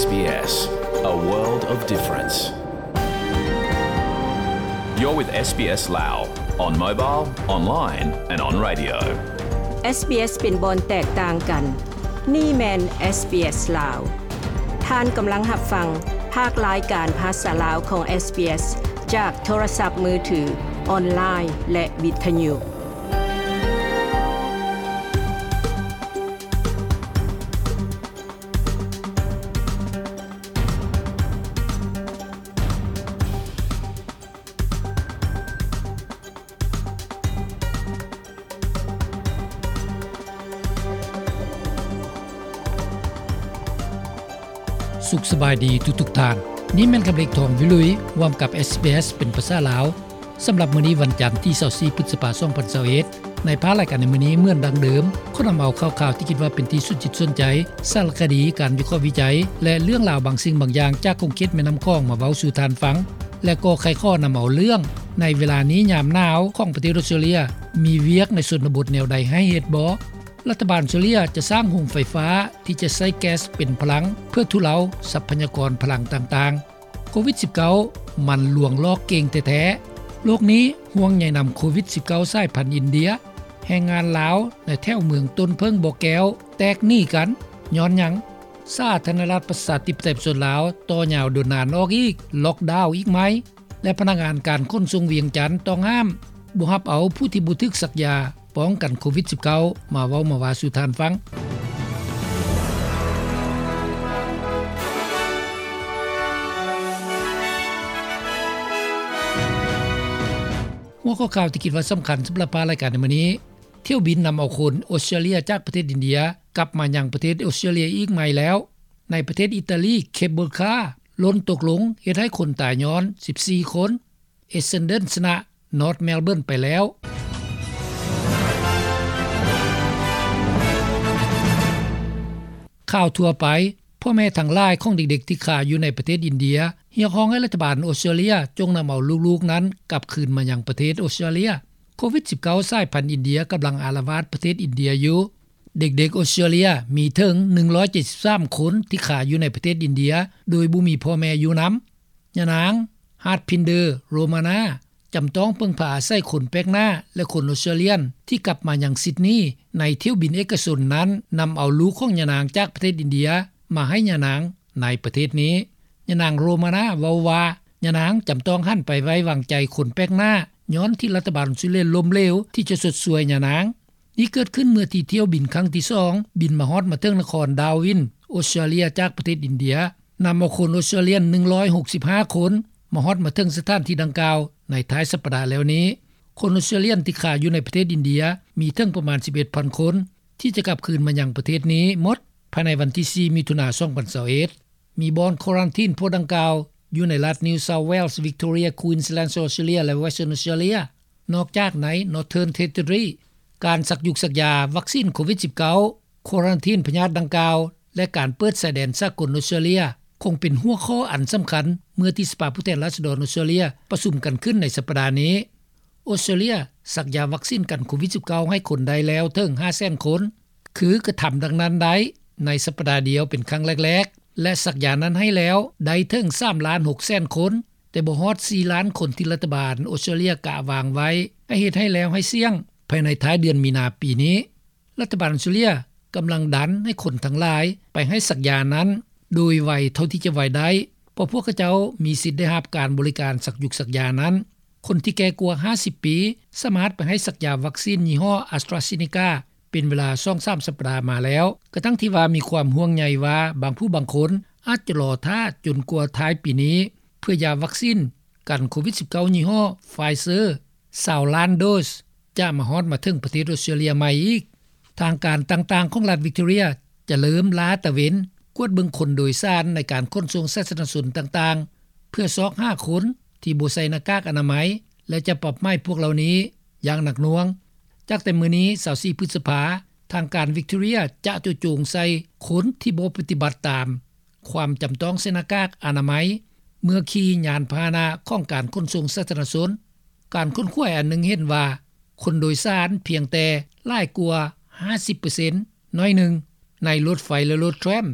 SBS, a world of difference. You're with SBS Lao on mobile, online and on radio. SBS ເປັນບ່ອນແຕກຕ່າງກັນ. ນີ້ແມ່ນ SBS ລາວ. ທ່ານກຳລັງຮັບຟັງພາກລາຍການພາສາລາວຂອງ SBS ຈາກໂທລະສັບມືຖື, ອອນລາຍ ແລະ ວິທະຍຸ. ສຸກສະບາຍດີທຸກໆທ່ານ. ນີ້ແມ່ນຄຳເລັກ ທອງວິລຸຍ ຮ່ວມກັບ SBS ເປັນພາສາລາວ. ສຳລັບມື້ນີ້ວັນຈັນທີຊາວສີ່ ພຶດສະພາ ສອງພັນຊາວເອັດ ໃນພາກລາຍການໃນມື້ນີ້ເໝືອນດັ່ງເດີມ ຂໍນຳເອົາຂ່າວໆທີ່ຄິດວ່າເປັນທີ່ສົນຈິດສົນໃຈ, ສາລະຄະດີ, ການວິເຄາະວິໄຈ ແລະ ເລື່ອງລາວບາງສິ່ງບາງຢ່າງຈາກຂົງເຂດແມ່ນ້ຳຂອງມາເວົ້າສູ່ທ່ານຟັງ ແລະ ກໍໃຄ່ຂໍນຳເອົາເລື່ອງ ໃນເວລານີ້ຍາມໜາວຂອງປະເທດອອສເຕຣເລັຍ ມີວຽກໃນຊົນນະບົດແນວໃດໃຫ້ເຮັດບໍ່? ລັດຖະບານອອສເຕຣເລັຍຈະສ້າງໂຮງໄຟຟ້າທີ່ຈະໃຊ້ແກັສເປັນພະລັງ ເພື່ອທຸເລົາຊັບພະຍາກອນພະລັງຕ່າງໆ. ໂຄວິດສິບເກົ້າ ມັນລວງຫຼອກເກັ່ງແທ້ໆ. ໂລກນີ້ຫ່ວງໃຍນຳໂຄວິດສິບເກົ້າ ສາຍພັນອິນເດຍ. ແຮງງານລາວໃນແຖວເມືອງຕົ້ນເຜິ້ງບໍ່ແກ້ວແຕກໜີກັນຍ້ອນຫຍັງ? ສາທາລະນະລັດປະຊາທິປະໄຕປະຊາຊົນລາວຕໍ່ຍາວດົນນານອອກອີກ, ລັອກດາວອີກໃໝ່ ແລະ ພະນັກງານການຂົນສົ່ງວຽງຈັນຕ້ອງຫ້າມ ບໍ່ຮັບເອົາຜູ້ທີ່ບໍ່ຖືກສັກຢາ ປ້ອງກັນໂຄວິດສິບເກົ້າ ມາເວົ້າມາວ່າສູ່ທ່ານຟັງ. ຫົວຂໍ້ຂ່າວທີ່ຄິດວ່າສຳຄັນສຳລັບພາກລາຍການໃນມື້ນີ້, ຖ້ຽວບິນນຳເອົາຄົນອອສເຕຣເລັຍຈາກປະເທດອິນເດຍ ກັບມາຍັງປະເທດອອສເຕຣເລັຍອີກໃໝ່ແລ້ວ. ໃນປະເທດອີຕາລີ, ເຄບເບິລຄາ ຫຼົ່ນຕົກລົງ ເຮັດໃຫ້ຄົນຕາຍຍ້ອນ ສິບສີ່ຄົນ. ເອສເຊັນເດີນ ຊະນະ ນອດ ເມລເບີນ ໄປແລ້ວ. ຂ່າວທົ່ວໄປ, ພໍ່ແມ່ທັງຫຼາຍຂອງເດັກໆທີ່ຄາຢູ່ໃນປະເທດອິນເດຍ ຮຽກຮ້ອງໃຫ້ລັດຖະບານອອສເຕຣເລັຍຈົ່ງນຳເອົາລູກໆນັ້ນກັບຄືນມາຍັງປະເທດອອສເຕຣເລັຍ. ໂຄວິດສິບເກົ້າ ສາຍພັນອິນເດຍກຳລັງອາລະວາດປະເທດອິນເດຍຢູ່. ເດັກໆອອສເຕຣເລັຍມີເຖິງ ໜຶ່ງຮ້ອຍເຈັດສິບສາມຄົນທີ່ຄາຢູ່ໃນປະເທດອິນເດຍ ໂດຍບໍ່ມີພໍ່ແມ່ຢູ່ນຳ. ຍານາງ ຮາດພິນເດີ ໂຣມານາ ຈຳຕ້ອງເພິ່ງພາອາໄສຄົນແປກໜ້າ ແລະ ຄົນອອສເຕຣເລັຍນ ທີ່ກັບມາຍັງຊິດນີ ໃນຖ້ຽວບິນເອກະຊົນນັ້ນ ນຳເອົາລູກຂອງຍານາງຈາກປະເທດອິນເດຍ ມາໃຫ້ຍານາງໃນປະເທດນີ້. ຍານາງ ໂຣມານາ ເວົ້າວ່າ ຍານາງຈຳຕ້ອງຫັນໄປໄວ້ວາງໃຈຄົນແປກໜ້າ ຍ້ອນທີ່ລັດຖະບານອອສເຕຣເລັຍລົ້ມເຫຼວທີ່ຈະຊົດຊ່ວຍຍານາງ. ນີ້ເກີດຂຶ້ນເມື່ອທີ່ຖ້ຽວບິນຄັ້ງທີສອງ ບິນມາຮອດມາເຖິງນະຄອນດາວິນ ອອສເຕຣເລັຍ ຈາກປະເທດອິນເດຍ. ນຳເອົາຄົນອອສເຕຣເລັຍນ ໜຶ່ງຮ້ອຍຫົກສິບຫ້າຄົນ ມາຮອດມາເຖິງສະຖານທີ່ດັ່ງກ່າວໃນທ້າຍສັບປະດາແລ້ວນີ້. ຄົນອອສເຕຣເລັຍນທີ່ຄາຢູ່ໃນປະເທດອິນເດຍ ມີເຖິງປະມານ ສິບເອັດພັນຄົນ ທີ່ຈະກັບຄືນມາຍັງປະເທດນີ້ໝົດ ພາຍໃນວັນທີສີ່ ມິຖຸນາ ສອງພັນຊາວເອັດ. ມີບ່ອນຄວາຣັນທີນພວກດັ່ງກ່າວຢູ່ໃນລັດ New South Wales, Victoria, Queensland, Australia ແລະ Western Australia. ນອກຈາກໃນ Northern Territory, ການສັກຢຸກສັກຢາວັກຊີນໂຄວິດສິບເກົ້າ ຄວາຣັນທີນພະຍາດດັ່ງກ່າວ ແລະ ການເປີດຊາຍແດນສາກົນອອສເຕຣເລັຍ ຄົງເປັນຫົວຂໍ້ອັນສຳຄັນ ເມື່ອທີ່ສະພາຜູ້ແທນລາຊະດອນອອສເຕຣເລັຍປະຊຸມກັນຂຶ້ນໃນສັບປະດານີ້. ອອສເຕຣເລັຍສັກຢາວັກຊີນກັນໂຄວິດສິບເກົ້າ ໃຫ້ຄົນໄດ້ແລ້ວເຖິງ ຫ້າແສນຄົນ ຄືກະທຳດັ່ງນັ້ນໄດ້ໃນສັບປະດາດຽວເປັນຄັ້ງແລກໆ ແລະ ສັກຢານັ້ນໃຫ້ແລ້ວໄດ້ເຖິງ ສາມລ້ານຫົກແສນຄົນ ແຕ່ບໍ່ຮອດ ສີ່ລ້ານຄົນ ທີ່ລັດຖະບານອອສເຕຣເລັຍກະວາງໄວ້ ໃຫ້ເຮັດໃຫ້ແລ້ວໃຫ້ສ່ຽງ ພາຍໃນທ້າຍເດືອນມີນາປີນີ້. ລັດຖະບານອອສເຕຣເລັຍກຳລັງດັນໃຫ້ຄົນທັງຫຼາຍໄປໃຫ້ສັກຢານັ້ນໂດຍໄວເທົ່າທີ່ຈະໄວໄດ້ ເພາະພວກເຂົາເຈົ້າມີສິດໄດ້ຮັບການບໍລິການສັກຢຸກສັກຢານັ້ນ. ຄົນທີ່ແກ່ກວ່າຫ້າສິບປີ ສາມາດໄປໃຫ້ສັກຢາວັກຊີນຍີ່ຫໍ້ AstraZeneca ເປັນເວລາສອງສາມສັບປະດາມາແລ້ວ ກະທັ່ງທີ່ວ່າມີຄວາມຫ່ວງໃຍວ່າບາງຜູ້ບາງຄົນອາດຈະລໍຖ້າຈົນກວ່າທ້າຍປີນີ້ ເພື່ອຢາວັກຊີນກັນໂຄວິດສິບເກົ້າຍີ່ຫໍ້ Pfizer ຊາວລ້ານໂດສ ຈະມາຮອດມາເຖິງປະເທດອອສເຕຣເລັຍໃໝ່ອີກ. ທາງການຕ່າງໆຂອງລັດ Victoria ຈະເລີ່ມລາດຕະເວນກວດເບິ່ງຄົນໂດຍສານໃນການຂົນສົ່ງສາທາລະນະຊົນຕ່າງໆ ເພື່ອຊອກຫາຄົນທີ່ບໍ່ໃສ່ໜ້າກາກອະນາໄມ ແລະ ຈະປັບໃໝພວກເຫຼົ່ານີ້ຢ່າງໜັກໜ່ວງ. ຈາກແຕ່ມື້ນີ້ ຊາວສີ່ ພຶດສະພາ, ທາງການ Victoria ຈະໂຈະໂຈງໃສ່ຄົນທີ່ບໍ່ປະຕິບັດຕາມຄວາມຈຳຕ້ອງໃສ່ໜ້າກາກອະນາໄມ ເມື່ອຂີ່ຍານພາຫະນະຂອງການຂົນສົ່ງສາທາລະນະຊົນ. ການຄົ້ນຄວ້າອັນໜຶ່ງເຫັນວ່າ ຄົນໂດຍສານພຽງແຕ່ຫຼາຍກວ່າຫ້າສິບເປີເຊັນ ໜ້ອຍໜຶ່ງ ໃນລົດໄຟ ແລະ ລົດແທຣມ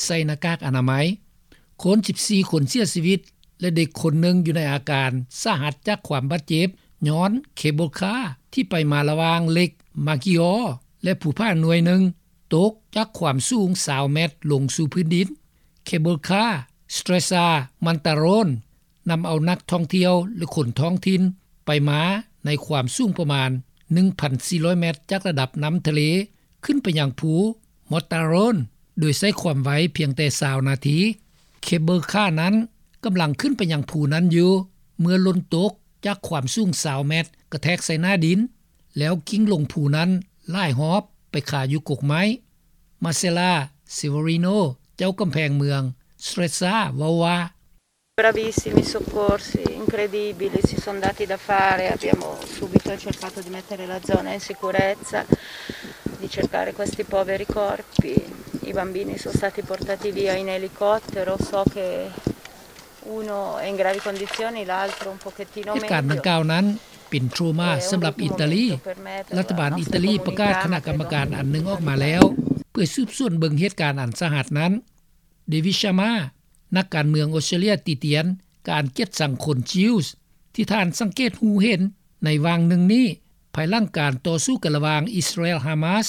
ໃສ່ໜ້າກາກອະນາໄມ. ຄົນສິບສີ່ຄົນເສຍຊີວິດ ແລະເດັກຄົນໜຶ່ງຢູ່ໃນອາການສາຫັດຈາກຄວາມບາດເຈັບ ຍ້ອນເຄເບິລຄາທີ່ໄປມາລະຫວ່າງເຫຼັກມາກິອໍ ແລະພູຜາໜ່ວຍໜຶ່ງ ຕົກຈາກຄວາມສູງຊາວແມັດລົງສູ່ພື້ນດິນ. ເຄເບິລຄາ Stresa Mantaron ນຳເອົານັກທ່ອງທ່ຽວ ແລະຄົນທ້ອງຖິ່ນໄປມາໃນຄວາມສູງປະມານໜຶ່ງພັນສີ່ຮ້ອຍແມັດ ຈາກລະດັບນ້ຳທະເລ ຂຶ້ນໄປຍັງພູ Mantaron ໂດຍໃຊ້ຄວາມໄວພຽງແຕ່ຊາວນາທີ. ເຄເບິລຄານັ້ນກຳລັງຂຶ້ນໄປຍັງພູນັ້ນຢູ່ ເມື່ອຫຼົ່ນຕົກຈາກຄວາມສູງຊາວແມັດ ກະແທກໃສ່ໜ້າດິນ ແລ້ວກິ້ງລົງພູນັ້ນຫຼາຍຮອບໄປຄາຢູ່ກົກໄມ້. Marcella Severino ເຈົ້າກຳແພງເມືອງ Stresa ເວົ້າວ່າ Bravissimi soccorsi, incredibili, si son dati da fare, abbiamo subito cercato di mettere la zona in sicurezza, di cercare questi poveri corpi. I bambini son stati portati via in elicottero, so che uno è in gravi condizioni, l'altro un pochettino meglio. ເຫດການດັ່ງກ່າວນັ້ນເປັນໂທຣມາສຳລັບອີຕາລີ. ລັດຖະບານອີຕາລີປະກາດຄະນະກຳມະການອັນໜຶ່ງອອກມາແລ້ວ ເພື່ອສືບສວນເບິ່ງເຫດການອັນສາຫັດນັ້ນ. David Sharma ນັກການເມືອງອົດສະຕຣາເລຍ ຕິຕຽນການກຽດຊັງຄົນ Jews ທີ່ທ່ານສັງເກດຮູ້ເຫັນໃນຫວ່າງໜຶ່ງນີ້ ພາຍຫຼັງການຕໍ່ສູ້ກັນລະຫວ່າງອິດສະຣາແອລ Hamas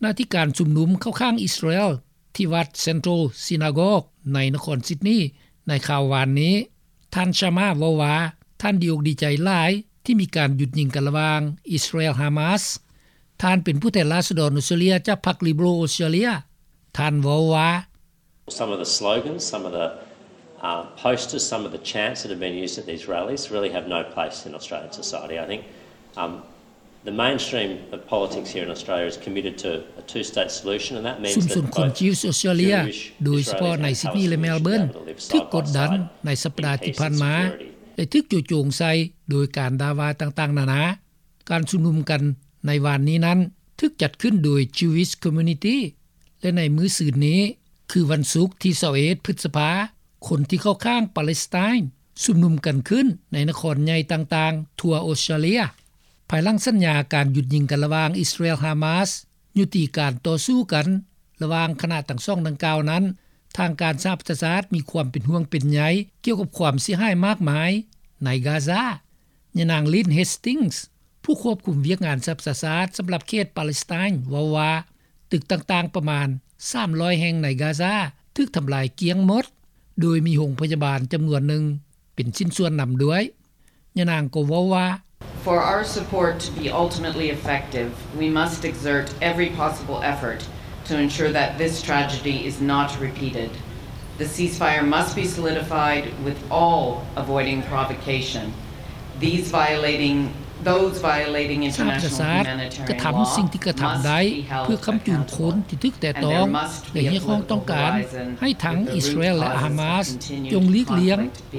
ນະທີ່ການຊຸມນຸມເຂົ້າຂ້າງອິດສະຣາແອລ ທີ່ວັດ Central Synagogue ໃນນະຄອນຊິດນີໃນຄາວວານນີ້. ທ່ານ Sharma ເວົ້າວ່າ ທ່ານດີອົກດີໃຈຫຼາຍທີ່ມີການຢຸດຍິງກັນລະຫວ່າງອິດສະຣາແອລ Hamas. ທ່ານເປັນຜູ້ແທນລາຊະດອນອົດສະຕຣາເລຍຈາກພັກ Liberal ອົດສະຕຣາເລຍ. ທ່ານເວົ້າວ່າ Some of the slogans, some of the, uh, posters, some of the chants that have been used at these rallies really have no place in Australian society. I think, um, the mainstream of politics here in Australia is committed to a two-state solution, and that means that both Jewish Israelis and Palestinians should be able to live side by side. ຊຸມຊົນຄົນ Jews ອົດສະຕຣາເລຍ ໂດຍສະເພາະໃນຊິດນີ ແລະ Melbourne ຖືກກົດດັນໃນສັບປະດາທີ່ຜ່ານມາ ແລະຖືກຈູ່ໂຈງໃສ່ໂດຍການດ່າວ່າຕ່າງໆນານາ. ການຊຸມນຸມກັນໃນວານນີ້ນັ້ນ ຖືກຈັດຂຶ້ນໂດຍ Jewish Community ແລະໃນມື້ຊືນນີ້ ຄືວັນສຸກທີຊາວເອັດ ພຶດສະພາ ຄົນທີ່ເຂົ້າຂ້າງປາເລສໄຕນ໌ຊຸມນຸມກັນຂຶ້ນໃນນະຄອນໃຫຍ່ຕ່າງໆທົ່ວອົດສະຕຣາເລຍ. ພາຍຫຼັງສັນຍາການຢຸດຍິງກັນລະຫວ່າງອິດສະຣາແອລ Hamas ຍຸຕິການຕໍ່ສູ້ກັນລະຫວ່າງຄະນະທັງສອງດັ່ງກ່າວນັ້ນ, ທາງການສະຫະປະຊາຊາດມີຄວາມເປັນຫ່ວງເປັນໃຍກ່ຽວກັບຄວາມເສຍຫາຍມາກມາຍໃນກາຊາ. ຍານາງ Lynn Hastings ຜູ້ຄວບຄຸມວຽກງານສະຫະປະຊາຊາດສຳລັບເຂດປາເລສໄຕນ໌ ເວົ້າວ່າ ຕຶກຕ່າງໆປະມານສາມຮ້ອຍແຫ່ງໃນກາຊາຖືກທຳລາຍກ້ຽງໝົດ, ໂດຍມີໂຮງພະຍາບານຈຳນວນໜຶ່ງເປັນຊິ້ນສ່ວນນຳດ້ວຍ. ຍານາງກໍເວົ້າວ່າ For our support to be ultimately effective, we must exert every possible effort to ensure that this tragedy is not repeated. The ceasefire must be solidified with all avoiding provocation. These violating, those violating international humanitarian law must be held accountable. ສະຫະປະຊາຊາດກະທຳສິ່ງທີ່ກະທຳໄດ້ເພື່ອຄ້ຳຈູງຄົນທີ່ຖືກແຕະຕ້ອງ ແລະຮຽກຮ້ອງຕ້ອງການໃຫ້ທັງອິດສະຣາແອລ ແລະ Hamas ຈົ່ງຫຼີກລ່ຽງ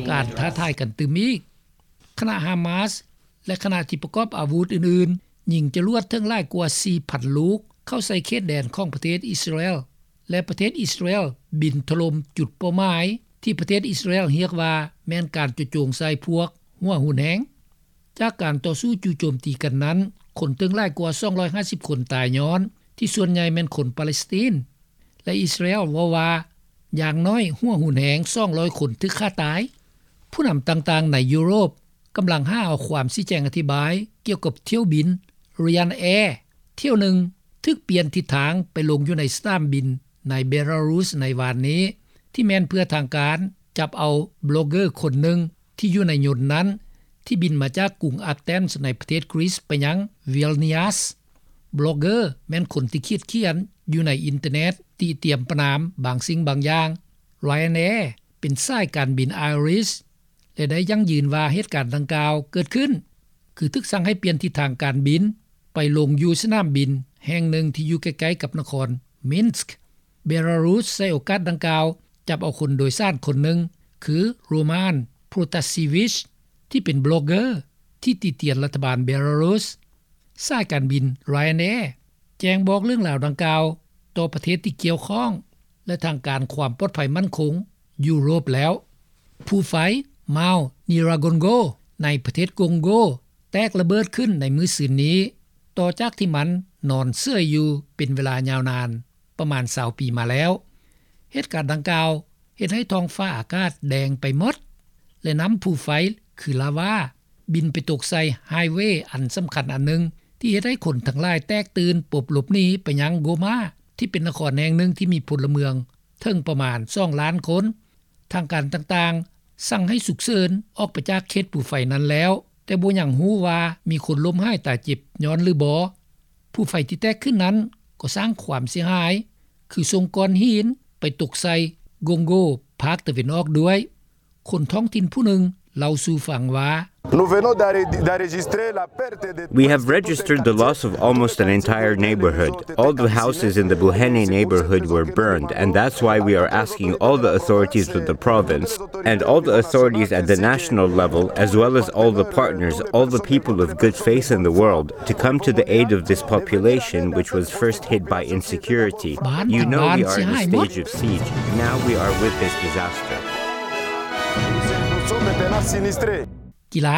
ການທ້າທາຍກັນຕື່ມອີກ. ຄະນະ Hamas ແລະຄະນະທີ່ປະກອບອາວຸດອື່ນໆ ຍິງຈະລວດເຖິງຫຼາຍກວ່າສີ່ພັນລູກເຂົ້າໃສ່ເຂດແດນຂອງປະເທດອິດສະຣາແອລ ແລະປະເທດອິດສະຣາແອລບິນຖະຫຼົ່ມຈຸດເປົ້າໝາຍທີ່ປະເທດອິດສະຣາແອລຮຽກວ່າແມ່ນການຈູ່ໂຈງໃສ່ພວກຫົວຮຸນແຮງ. ຈາກການຕໍ່ສູ້ຈູ່ໂຈມຕີກັນນັ້ນ, ຄົນເຖິງຫຼາຍກວ່າສອງຮ້ອຍຫ້າສິບຄົນຕາຍຍ້ອນທີ່ສ່ວນໃຫຍ່ແມ່ນຄົນປາເລສໄຕນ໌ ແລະ ອິດສະຣາແອລເວົ້າວ່າ ຢ່າງໜ້ອຍຫົວຮຸນແຮງສອງຮ້ອຍຄົນຖືກຂ້າຕາຍ. ຜູ້ນຳຕ່າງໆໃນຢູໂຣບກຳລັງຫາເອົາຄວາມຊີ້ແຈງອະທິບາຍກ່ຽວກັບຖ້ຽວບິນ Ryanair ຖ້ຽວໜຶ່ງຖືກປ່ຽນທິດທາງໄປລົງຢູ່ໃນສະໜາມບິນໃນເບລາຣຸສໃນວານນີ້, ທີ່ແມ່ນເພື່ອທາງການຈັບເອົາບລັອກເກີຄົນໜຶ່ງທີ່ຢູ່ໃນຍົນນັ້ນ ທີ່ບິນມາຈາກກຸງອາເທນໃນປະເທດກຣີສໄປຍັງວິລນິວສ. ບລັອກເກີແມ່ນຄົນທີ່ຂຽດຂຽນຢູ່ໃນອິນເຕີເນັດ ຕິຕຽມປະນາມບາງສິ່ງບາງຢ່າງ. Ryanair ເປັນສາຍການບິນ Irish ແລະໄດ້ຢັ້ງຢືນວ່າເຫດການດັ່ງກ່າວເກີດຂຶ້ນ ຄືຖືກສັ່ງໃຫ້ປ່ຽນທິດທາງການບິນໄປລົງຢູ່ສະໜາມບິນແຫ່ງໜຶ່ງທີ່ຢູ່ໃກ້ໆກັບນະຄອນມິນສ. ເບລາຣຸສໃຊ້ໂອກາດດັ່ງກ່າວຈັບເອົາຄົນໂດຍສານຄົນໜຶ່ງ ຄື Roman Protasevich ທີ່ເປັນບລັອກເກີທີ່ຕິຕຽນລັດຖະບານເບລາຣຸສ. ສາຍການບິນ Ryanair ແຈ້ງບອກເລື່ອງລາວດັ່ງກ່າວຕໍ່ປະເທດທີ່ກ່ຽວຂ້ອງ ແລະທາງການຄວາມປອດໄພໝັ້ນຄົງຢູໂຣບແລ້ວ. ພູໄຟ Mount Nyiragongo ໃນປະເທດກົງໂກ ແຕກລະເບີດຂຶ້ນໃນມື້ຊືນນີ້ ຕໍ່ຈາກທີ່ມັນນອນເສີຍຢູ່ເປັນເວລາຍາວນານປະມານຊາວປີມາແລ້ວ. ເຫດການດັ່ງກ່າວ ເຮັດໃຫ້ທ້ອງຟ້າອາກາດແດງໄປໝົດ ແລະ ນຳພູໄຟຄືລາວາບິນໄປຕົກໃສ່ໄຮເວອັນສຳຄັນອັນໜຶ່ງ ທີ່ເຮັດໃຫ້ຄົນທັງຫຼາຍແຕກຕື່ນປົບຫຼົບໜີໄປຍັງໂກມາ ທີ່ເປັນນະຄອນແຫ່ງໜຶ່ງທີ່ມີພົນລະເມືອງເຖິງປະມານສອງລ້ານຄົນ. ທາງການຕ່າງໆສັ່ງໃຫ້ສຸກເສີນອອກໄປຈາກເຂດພູໄຟນັ້ນແລ້ວ, ແຕ່ບໍ່ຍັງຮູ້ວ່າມີຄົນລົ້ມຫາຍຕາຍເຈັບຍ້ອນຫຼືບໍ່. ພູໄຟທີ່ແຕກຂຶ້ນນັ້ນກໍສ້າງຄວາມເສຍຫາຍ ຄືສົ່ງກ້ອນຫີນໄປຕົກໃສ່ໂກງໂກພາກຕາເວັນອອກດ້ວຍ. ຄົນທ້ອງຖິ່ນຜູ້ໜຶ່ງເລົ່າສູ່ຟັງວ່າ We have registered the loss of almost an entire neighborhood. All the houses in the Buhene neighborhood were burned, and that's why we are asking all the authorities of the province and all the authorities at the national level, as well as all the partners, all the people of good faith in the world, to come to the aid of this population which was first hit by insecurity. You know we are in a stage of siege. Now we are with this disaster. ກິລາ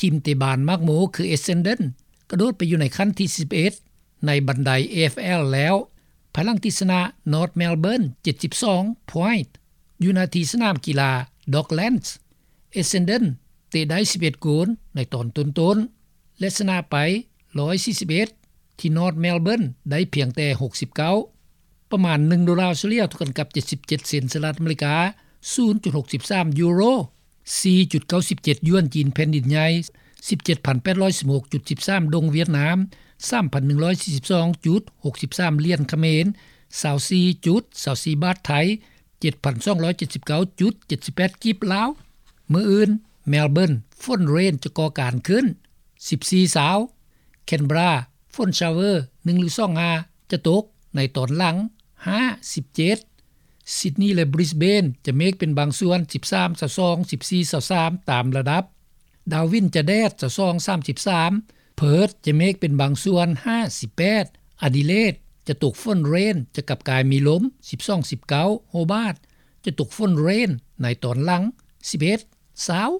ທີມເຕະບານໝາກໂມ ຄື Essendon ກະໂດດໄປຢູ່ໃນຂັ້ນທີສິບເອັດ ໃນບັນໄດ AFL ແລ້ວ ພາຍຫຼັງທີ່ຊະນະ North Melbourne ເຈັດສິບສອງ point ຢູ່ໜ້າທີ່ສະໜາມກິລາ Docklands. Essendon ເຕະໄດ້ສິບເອັດໂກນໃນຕອນຕົ້ນໆ ແລະ ຊະນະໄປ ໜຶ່ງຮ້ອຍສີ່ສິບເອັດ ທີ່ North Melbourne ໄດ້ພຽງແຕ່ ຫົກສິບເກົ້າ. ປະມານໜຶ່ງໂດລາສະເລ່ຍ ເທົ່າກັນກັບ ເຈັດສິບເຈັດ ເຊັນສະຫະລັດອາເມລິກາ, ສູນຈຸດຫົກສິບສາມຢູໂຣ, ສີ່ຈຸດເກົ້າສິບເຈັດຢວນຈີນແຜ່ນດິນໃຫຍ່, ສິບເຈັດພັນແປດຮ້ອຍສິບຫົກຈຸດສິບສາມດົງຫວຽດນາມ, ສາມພັນໜຶ່ງຮ້ອຍສີ່ສິບສອງຈຸດຫົກສິບສາມຫຼຽນຂະເໝນ, ຊາວສີ່ຈຸດຊາວສີ່ບາດໄທ, ເຈັດພັນສອງຮ້ອຍເຈັດສິບເກົ້າຈຸດເຈັດສິບແປດກີບລາວ. ມື້ອື່ນ Melbourne ຝົນເຣນຈະກໍ່ການຂຶ້ນ ສິບສີ່ ຊາວ, Canberra ຝົນຊາວເວີໜຶ່ງຫຼືສອງຫາຈະຕົກໃນຕອນຫຼັງ ຫ້າ ສິບເຈັດ, Sydney ແລະ Brisbane ຈະເມກເປັນບາງສ່ວນ ສິບສາມ ຊາວສອງ, ສິບສີ່ ຊາວສາມ ຕາມລະດັບ, Darwin ຈະແດດ ຊາວສອງ ສາມສິບສາມ, Perth ຈະເມກເປັນບາງສ່ວນ ຫ້າ ສິບແປດ, Adelaide ຈະຕົກຝົນເຣນ ຈະກັບກາຍມີລົມ ສິບສອງ ສິບເກົ້າ, Hobart ຈະຕົກຝົນເຣນໃນຕອນຫຼັງ ສິບເອັດ ຊາວ.